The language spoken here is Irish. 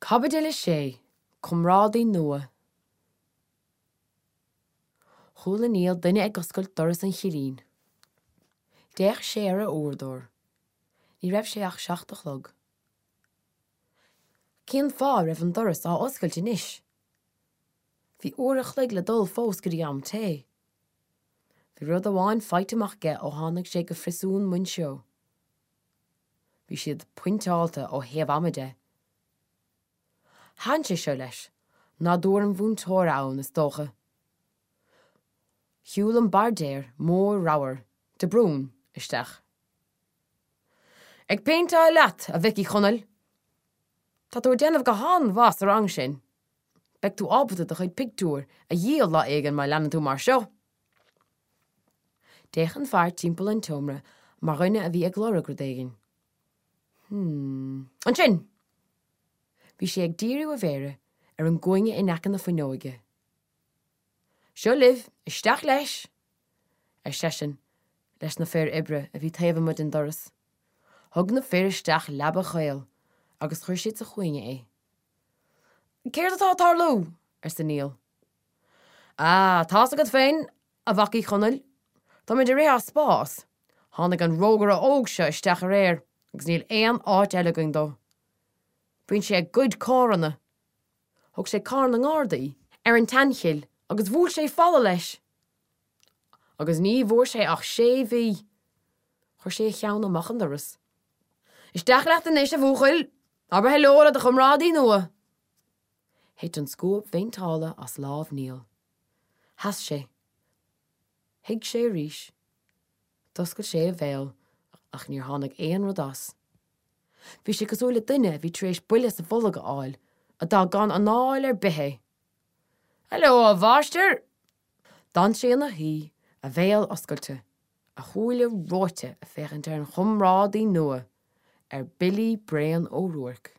Caibidil 6, Comrádaí Nua Chuala Niall duine ag oscailt doras an chillín. D'fhéach sé ar a uaireadóir. Ní raibh sé ach 7 a chlog. Cén fáth a raibh an doras á oscailt anois? Bhí uair a chloig le dul fós go dtí am tae. Bhí rud amháin faighte amach aige ó tháinig sé go Phriosún Mhuinseo. Bhí siad pointeáilte ó thaobh ama de. Thaitin sé seo leis, nádúr an mhúinteora ann, is dócha. Shiúil an bairdéir mór ramhar, de Brún, isteach. Ag péinteáil leat, a mhic Uí Chonaill! Tá tú ag déanamh go han-mhaith sa rang sin. Beidh tú ábalta do chuid pictiúr a dhíol lá éigin má leanann tú mar seo! D'fhéach an fear timpeall an tseomra mar dhuine a bhí ag lorg rud éigin. Hmm. Ansin! Bhí sé ag díriú a mhéire ar an gcúinne in aice na fuinneoige. Seo libh, isteach leis! ar seisean leis na fir oibre a bhí taobh amuigh den doras. Thug na fir isteach leaba chaol agus chuir siad sa chúinne é. Céard atá ag tarlú? arsa Niall. Ah, tá's agat féin, a mhac Uí Chonaill, táimid ag rith as spás. Tháinig an rógaire óg seo isteach aréir agus níl aon áit eile againn dó. Bíonn sé ag goid carranna. Thóg sé carr na nGardaí ar an tSeanchill agus bhuail sé falla leis. Agus ní bhfuair sé ach sé mhí. Chuir sé a cheann amach an doras. Isteach leat anois, a bhuachaill! Abair heileo le do chomrádaí nua! Thit an scuab phéinteála as lámh Niall. Sheas sé. Shuigh sé arís. D'oscail sé a bhéal ach níor tháinig aon rud as. Bhí sé cosúil le duine a bhí tar éis buille sa bholg a fháil, a d'fhág gan anáil ar bith é. Heileo, a mháistir! D'fhan sé ina shuí, a bhéal oscailte, a shúile reoite ag féachaint ar an chomrádaí nua, ar Billy Bréan Ó Ruairc.